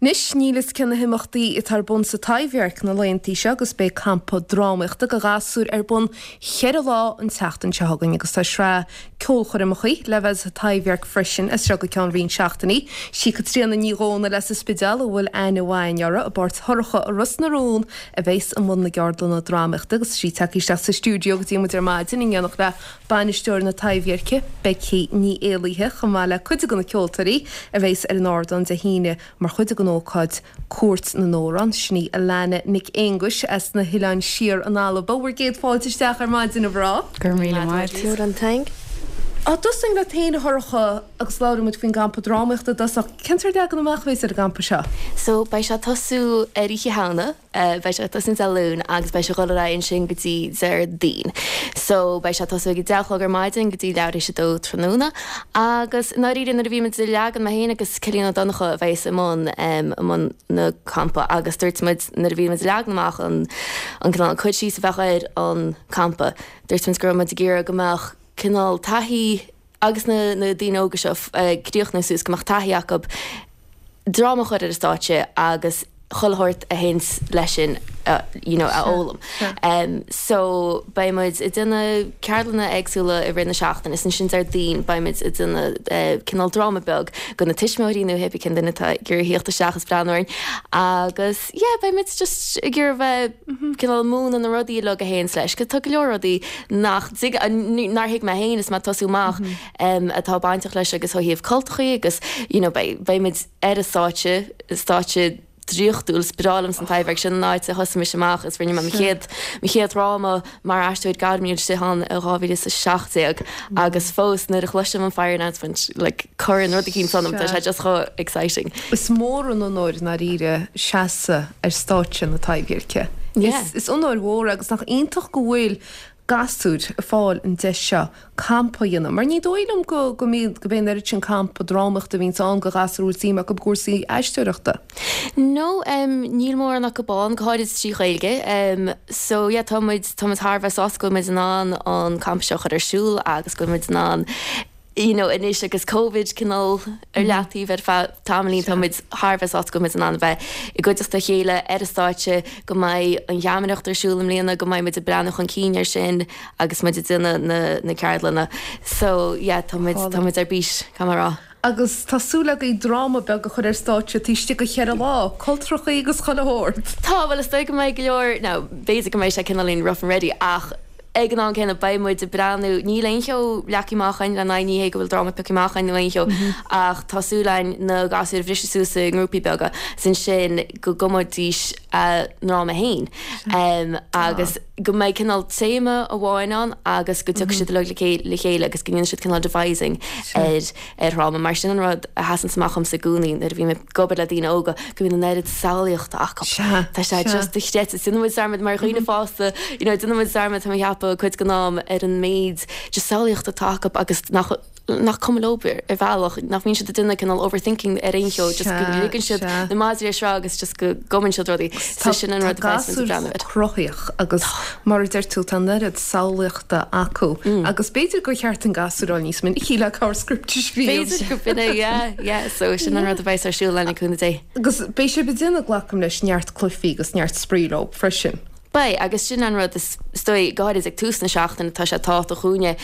Anois, níl fhios cé na himeachtaí atá ar bun sa Taibhdhearc na laethantaí seo agus beidh campa drámaíochta do ghasúir ar bun cheithre lá an tseachtain seo chugainn agus tá sraith ceolchoirmeachaí le bheith sa Taibhdhearc freisin as seo go ceann roinnt seachtainí. Sí Caitríona Ní Dhomhnaill as an Spidéal a bhfuil aithne mhaith againn uirthi i bpáirt Shorcha i Ros na Rún a bheas i mbun na gceardlanna drámaíochta agus sí tagtha isteach sa stiúideo go dtí muid ar maidin in éineacht le Bainisteoir na Taibhdheirce, Becky Ní Éalaithe, chomh maith le cuid de na ceoltóirí a bheas ar an ardán Dé hAoine mar chuid den ócáid Cúirt na nAmhrán, sin í Alana Nic Aonghuis as na hOileáin Siar in Alba. Bhur gcéad fáilte isteach ar maidin, a mhná. Go raibh míle maith agat. Mòran taing. Á dtosóinn leat féin, a Shorcha, agus labhróidh muid faoin gcampa drámaíochta i dtosach. Cén sórt leagan amach a bheas ar an gcampa seo? So, beidh sé ag tosú ar Oíche Shamhna. Beidh sé ag tosú Dé Luain agus beidh sé ag dul ar aghaidh ansin go dtí Déardaoin. So beidh sé ag tosú ag a deich a chlog ar maidin go dtí leathuair théis a dó tráthnóna. Agus i ndáiríre nuair a bhí muid ag leagan, mé féin agus Cillian Ó Donnchadha a bheas i mbun i mbun na campa agus dúirt muid nuair a bhí muid ag leagan amach an an cineál an cur síos a bheadh ar an campa, dúirt muid go raibh muid ag iarraidh go mbeadh cineál taithí agus na na daoine óga seo ag críochnú suas go mbeadh taithí acu dráma a chur ar an stáitse agus chuile shórt a théanns leis sin you know a fhoghlaim. So beidh muid ag déanamh ceardlanna éagsúla i rith na seachtaine is ansin Déardaoin beidh muid ag déanamh cineál dráma beag do na tuismitheoirí nó hébí cén duine atá ag iarraidh theacht isteach is breathnú orainn agus yeah beidh muid just ag iarraidh bheith cineál múineadh na rudaí uilig a théanns leis 'cause tá go leor rudaí nach dtig, nár thuig mé féin is mé ag tosú amach atá bainteach leis agus ó thaobh cultachaí agus you know beidh, beidh muid ar an stáitse, stáitse draíochtúil, is breá liomsa an Taibhdhearc, sin an áit a thosaigh mise amach is rinne mé mo chéad, mo chéad dhráma mar aisteoir gairmiúil istigh ann i 2017 agus fós nuair a chloisim an fire announcement like cuireann rud eicínt ionam, tá sé just chomh exciting. Is mór an onóir i ndáiríre seasamh ar stáitse na Taibhdheirce. Is onóir mhór é agus nach iontach go bhfuil gasúir ag fáil an deis seo campa a dhéanamh mar ní dóigh liom go go mbíonn go mbíonn an oiread sin campa drámaíochta a bhíonns ann do ghasúir a bhfuil suim acu i gcúrsaí aisteoireachta. No, níl mórán acu ann, go háirid trí Ghaeilge. So yeah, tá muid, tá muid thar a bheith sásta go bhfuil muid in ann an campa seo a chur ar siúl agus go bhfuil muid in ann you know, anois agus Covid cineál ar leataobh ar feadh tamaillín, tá muid thar a bheith sásta go bhfuil muid in ann a bheith i gcuideachta a chéile ar an stáitse, go mbeidh an gheamaireacht ar siúl i mbliana, go mbeidh muid ag breathnú chun cinn air sin agus muid ag déanamh na, na ceardlanna. So, yeah, tá muid, tá muid ar bís, caithfidh mé a rá. Agus tá súil agaibh dráma beag a chur ar stáitse taobh istigh de cheithre lá, cultrachaí agus chuile shórt. Tá, bhuel is dóigh go mbeidh go leor, now b'fhéidir go mbeidh sé cineáilín rough and ready ach ag an am céanna beidh muid ag breathnú, níl aon cheo leagtha amach againn le n-aghaidh, ní hé go bhfuil dráma pioctha amach againn nó aon cheo ach tá súil againn na gasúir a bhriseadh suas i ngrúpaí beaga is ansin go gcumfaidís a ndráma féin agus go mbeidh cineál téama amháin ann agus go dtiocfaidh siad uilig le chéile agus go ndéanfaidh siad cineál devising ar ar dhráma. Mar sin an rud a sheasanns amach dhomsa i gcónaí nuair a bhím ag obair le daoine óga, go mbíonn an oiread samhlaíochta acu. Tá sé just dochreidte. Déanann muid dearmad mar dhaoine fásta, you know, déanann muid dearmad, tá mé ag ceapadh, cuid den am ar an méid just samhlaíochta atá acu agus nach nach cuma leo ar bhealach, nach mbíonn siad ag déanamh cineál overthinking ar aon cheo, just go ligeann siad na madraí ar sruth agus just go gcumann siad rudaí. So sin an rud a bheas muid ag breathnú air. Tá gasúir cruthaíoch agus mar a deir tú tá an oiread samhlaíochta acu agus b'fhéidir gur cheart don gasúr a fháil níos minicí le cabhair script a scríobh. B'fhéidir go b'in é, yeah, yeah, so sin an rud a bheas ar siúl le cúnamh Dé. Agus beidh sibh ag déanamh, glacaim leis, neart cluichí agus neart spraoi leo freisin. Beidh, agus sin an rud is dóigh, go háirid ag tús na seachtaine, tá sé tábhachtach dhúinne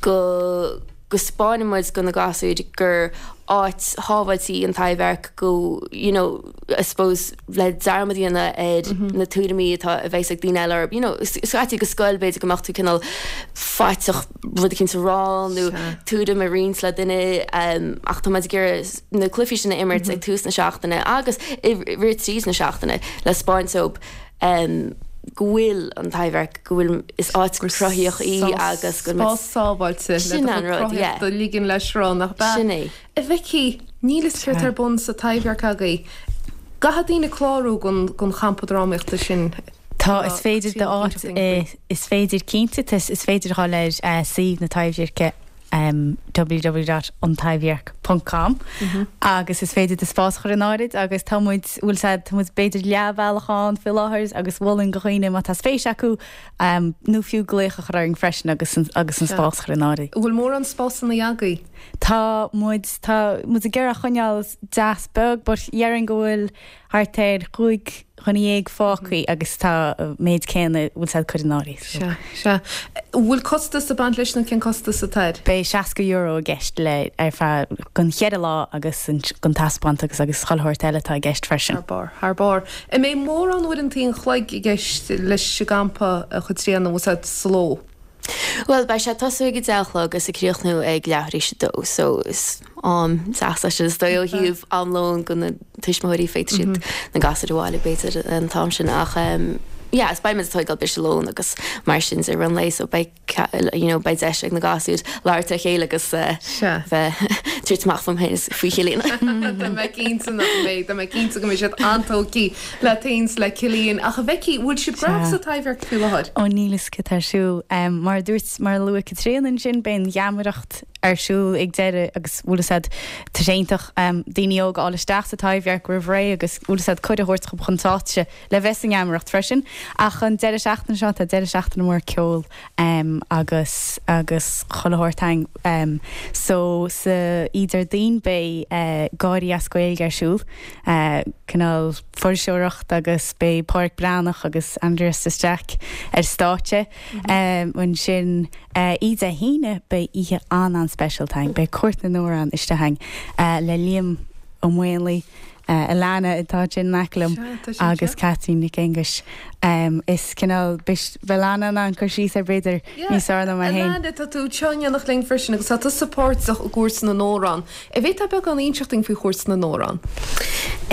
go go 'spáineann muid do na gasúir gur áit shábháilte í an Taibhdhearc, go, you know, I suppose le dearmad a dhéanamh ar na tuairimí atá, a bheas ag daoine eile orthu, you know, scaití go scoil b'fhéidir go mbeadh tú cineál faiteach rud eicínt a rá nó tuairim a roinnt le duine ach tá muid ag iarraidh na cluichí sin a imirt ag tús na seachtaine agus i rith tríd na seachtaine le 'spáint dóibh go bhfuil an Taibhdhearc, go bhfuil, is áit cruthaíoch í agus go bhfuil. Spás sábháilte le do chuid cruthaíochta a ligean le sruth, nach ea? Sin é. A Bheicí, níl fhios céard tá ar bun sa Taibhdhearc agaibh. Caithfidh daoine clárú don champa drámaíochta sin. Tá, is féidir d'áit, is féidir cinnte, is féidir a dhul ar suíomh na Taibhdheirce, www.antaibhdhearc. Ponc com agus is féidir do spás a chur in áirid agus tá muid, bhfuil 's a'd, tá muid b'fhéidir leathbhealach ann faoi láthair agus mholfainn do dhaoine má tá spéis acu nó fiú glaoch a chur orainn freisin agus agus an spás a chur in áirid. An bhfuil mórán spásanna agaibh? Tá muid, tá muid ag iarraidh a choinneáil deas beag but dhéarfainn go bhfuil thart ar chúig dhuine dhéag fágthaí agus tá an méid céanna bhfuil 's a'd curtha in áirithe. Sea, sea. An bhfuil costas ag baint leis nó cén costas atá air? Beidh €60 i gceist le ar feadh don cheithre lá agus don taispeántas agus chuile shórt eile atá i gceist freisin. Thar barr, thar barr. An mbeidh mórán uaireanta an chloig i gceist leis an gcampa a Chaitríona, bhfuil 's a'd, sa ló? Bhuel, beidh sé ag tosú ag a deich a chlog agus ag críochnú ag leathuair tar éis a dó, so is am deas é sin is dóigh ó thaobh am lóin do na tuismitheoirí, féadfaidh siad na gasúir a bhailiú b'fhéidir an t-am sin ach yeah is beidh muid ag tógáil briseadh lóin agus mar sin de i rith an lae so beidh you know beidh deis ag na gasúir labhairt le chéile agus bheith tabhairt amach fúm féin is faoi Chillian. Tá mé cinnte nach mbeidh, tá mé cinnte go mbeidh siad an-tógtha le Taoins le Cillian. Ach a Bheicí, bhfuil sibh gnóthach sa Taibhdhearc faoi láthair? Ó níl fhios cad tá ar siúl. Mar a dúirt, mar a luaigh Caitríona ansin, beidh an gheamaireacht ar siúl ag deireadh agus bhfuil fhios a'd, tá sé iontach daoine óga a fháil isteach sa Taibhdhearc roimh ré agus bhfuil fhios a'd cuireadh a thabhairt dhóibh chun stáitse le bheith sa ngeamaireacht freisin. Ach an deireadh seachtaine seo, tá deireadh seachtaine mór ceoil agus agus chuile shórt a'inn. So sa oíche Déardaoin beidh Gáirí as Gaeilge ar siúl, cineál fuirseoireacht agus beidh Pádraic Breathnach agus Aindrias de Staic ar stáitse. Ansin oíche Dé hAoine beidh oíche an-an-speisialta a'inn, beidh Cúirt na nAmhrán istigh a'inn le Liam Ó Maonlaí, Alana atá ansin in aice liom agus Caitlín Nic Aonghuis. Is cineál, beidh Alana in ann cur síos air b'fhéidir níos fearr ná mé féin. Alana, tá tú anseo in éineacht linn freisin agus tá tusa páirteach i gCúirt na nAmhrán. An bhféadfá beagán a inseacht dúinn faoi Chúirt na nAmhrán?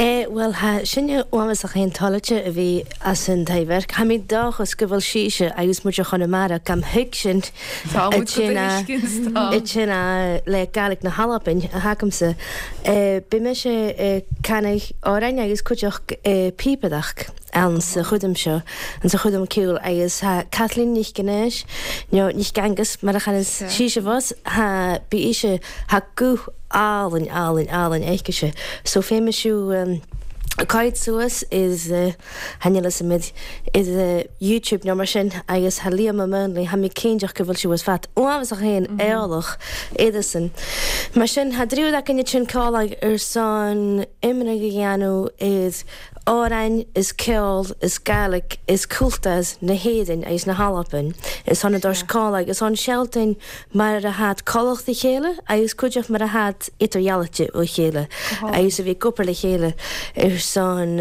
Eh, bhuel, tha sinne uathbhasach fhén toilite a bhí as an Taibhdhearc. Tha mi dòchas gu bheil sìse agus muid a Chonamara gam thuigsint Tá muid go tuiscint, tá. a tsin a le Gàidhlig na hAlban a thagamsa. Bidh mise ag canadh àrainn agus cuideachd píopadach ann sa chudam seo, an sa chudam ceoil agus tha Caitlín Nic Aonghais, nó Nic Aonghus mar a chanas sìse fos, tha, bí ise, tha guth álainn, álainn, álainn aicise. So fé mise ag suas is. Tha níl fhios a'm ar YouTube nó mar sin agus tha Liam Ó Maonlaí, tha mi cinnteach go bhfuil sé uas fat uathbhasach fhéin eolach iadsan. Mar sin tha dtriúr againn ansin ceol ar son iomragh a dhéanamh ar amhráin is ceol is Gàidhlig is cultúr na hÉireann agus na hAlban is thon a dtoirt ceol agus thon seoltain mar a thad culacht a chéile agus cuideachd mar a thad idirdhealaite ó chéile agus a bhí ag obair le chéile ar son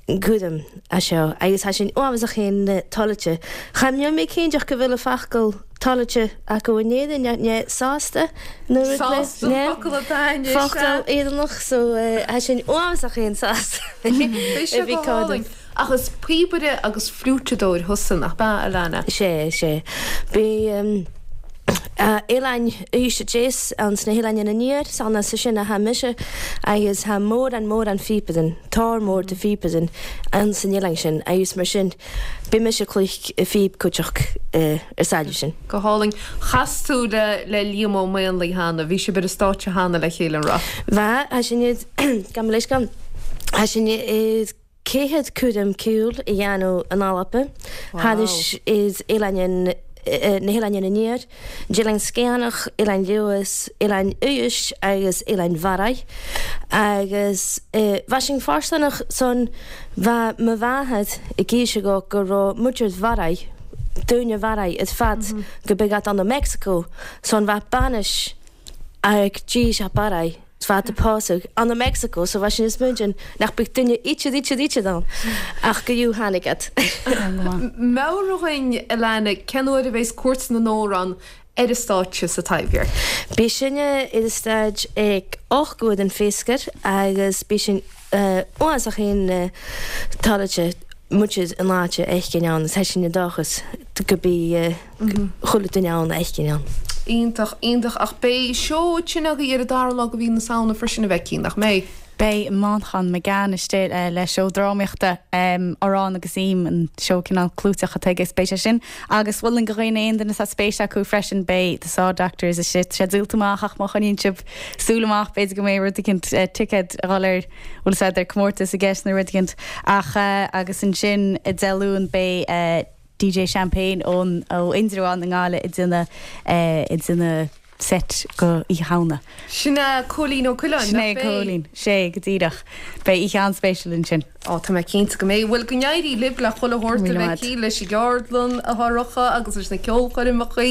gúdaim a seo agus tá sin uathbhasach fhéin toilite. Cha mbeadh mé cinnteach go bhfuil a focal toilite acu in Éirinn né sásta nó rud le Sásta an focal atá anois, focal Éireannach so tá sin uathbhasach fhéin sásta Beidh sé go hálainn. Ach is píobaire agus fliúiteadóir thusa, nach b'ea, Alana? Sé, sé. Bhí Oileáin Uibhist a Deas ann sna hOileáin Aniar, 's ann as sin a tha mise agus tha mórán mórán phíopadan, tor mór de phíopadan ann san oileán sin agus mar sin bhi mise ag cluich phíb cuiteach ar sailleadh sin. Go hálainn. Chas tú le le Liam Ó Maonlaí cheana, bhí sibh ar an stáitse cheana le chéile, an raibh? Bha, tha sinn id, gabh mo leithscéal, tha sinn id Céad cúram ceoil a dhéanamh in Alba, thairis is Oileáin na hOileáin Aniar, Oileán Sgitheanach, Oileán Leodhas, Oileán Uibhist agus Oileán Bharraigh. Agus bha sin fóirsteanach san bha mo mháthair ag aois ago go raibh muintir Bharraigh, daoine Bharraigh ar fad go beag ann i Meicsiceo san bha bainis ag dís a Barraigh. 's fada pósadh ann i Mexico so bha sin is muidin nach beadh duine ítead ítead ítead ann ach go fhiú tháinig iad. Meabhraigh dhúinn, Alana, cén uair a bheas Cúirt na nAmhrán ar an stáitse sa Taibhdhearc? Beidh sin ar an stáid ag 8 uair den phéascar agus beidh sin uafásach fhéin toilite muid in áit a fheiscint ann is tá sin i dóchas go beidh chuile duine ann a fheiscint ann. Iontach, iontach. Ach beidh seó ansin agaibh ar an dara lá de mhí na Samhna freisin a Bheicí, nach mbeidh? Beidh Manchán Magan istigh le seó drámaíochta, Arán agus Im, an seó cineál clúiteach atá aige, is beidh sé sin agus mholfainn do dhaoine, aon duine atá spéis acu freisin, beidh The Saw Doctors istigh, tá sé díolta amach ach má choinníonn sibh súil amach b'fhéidir go mbeidh rud eicínt, ticéad a dhul ar, bhfuil 'fhios a'd, ar comórtas i gceist nó rud eicínt ach agus ansin Dé Luain beidh DJ Champagne ón, ó Indreabhán i nGaillimh ag déanamh, ag déanamh set go Oíche Shamhna. Sin é Cóilín Ó Coileáin, Sin é Cóilín, sé, go díreach. Beidh oíche an-spéisiúil ansin. Ó, tá mé cinnte go mbeidh. Bhuel, go n-éirí libh le chuile shórt a bheidh leis an gceardlann atá romhaibh agus leis na ceolchoirmeacha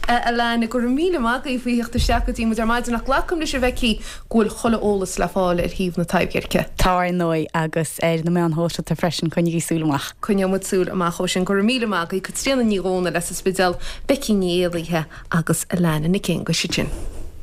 a lean. Go raibh míle maith agaibh faoi theacht isteach go dtí muid ar maidin ach glacaim leis a Bheicí go bhfuil chuile eolas le fáil ar shuíomh na Taibhdheirce. Tá ar ndóigh, agus ar na meáin shóisialta freisin, coinnigí súil amach. Coinneoidh muid súil amach ó sin. Go raibh míle maith agaibh, Caitríona Ní Dhomhnaill as an Spidéal, Becky Ní Éalaithe agus Alana Nic Aonghuis ansin.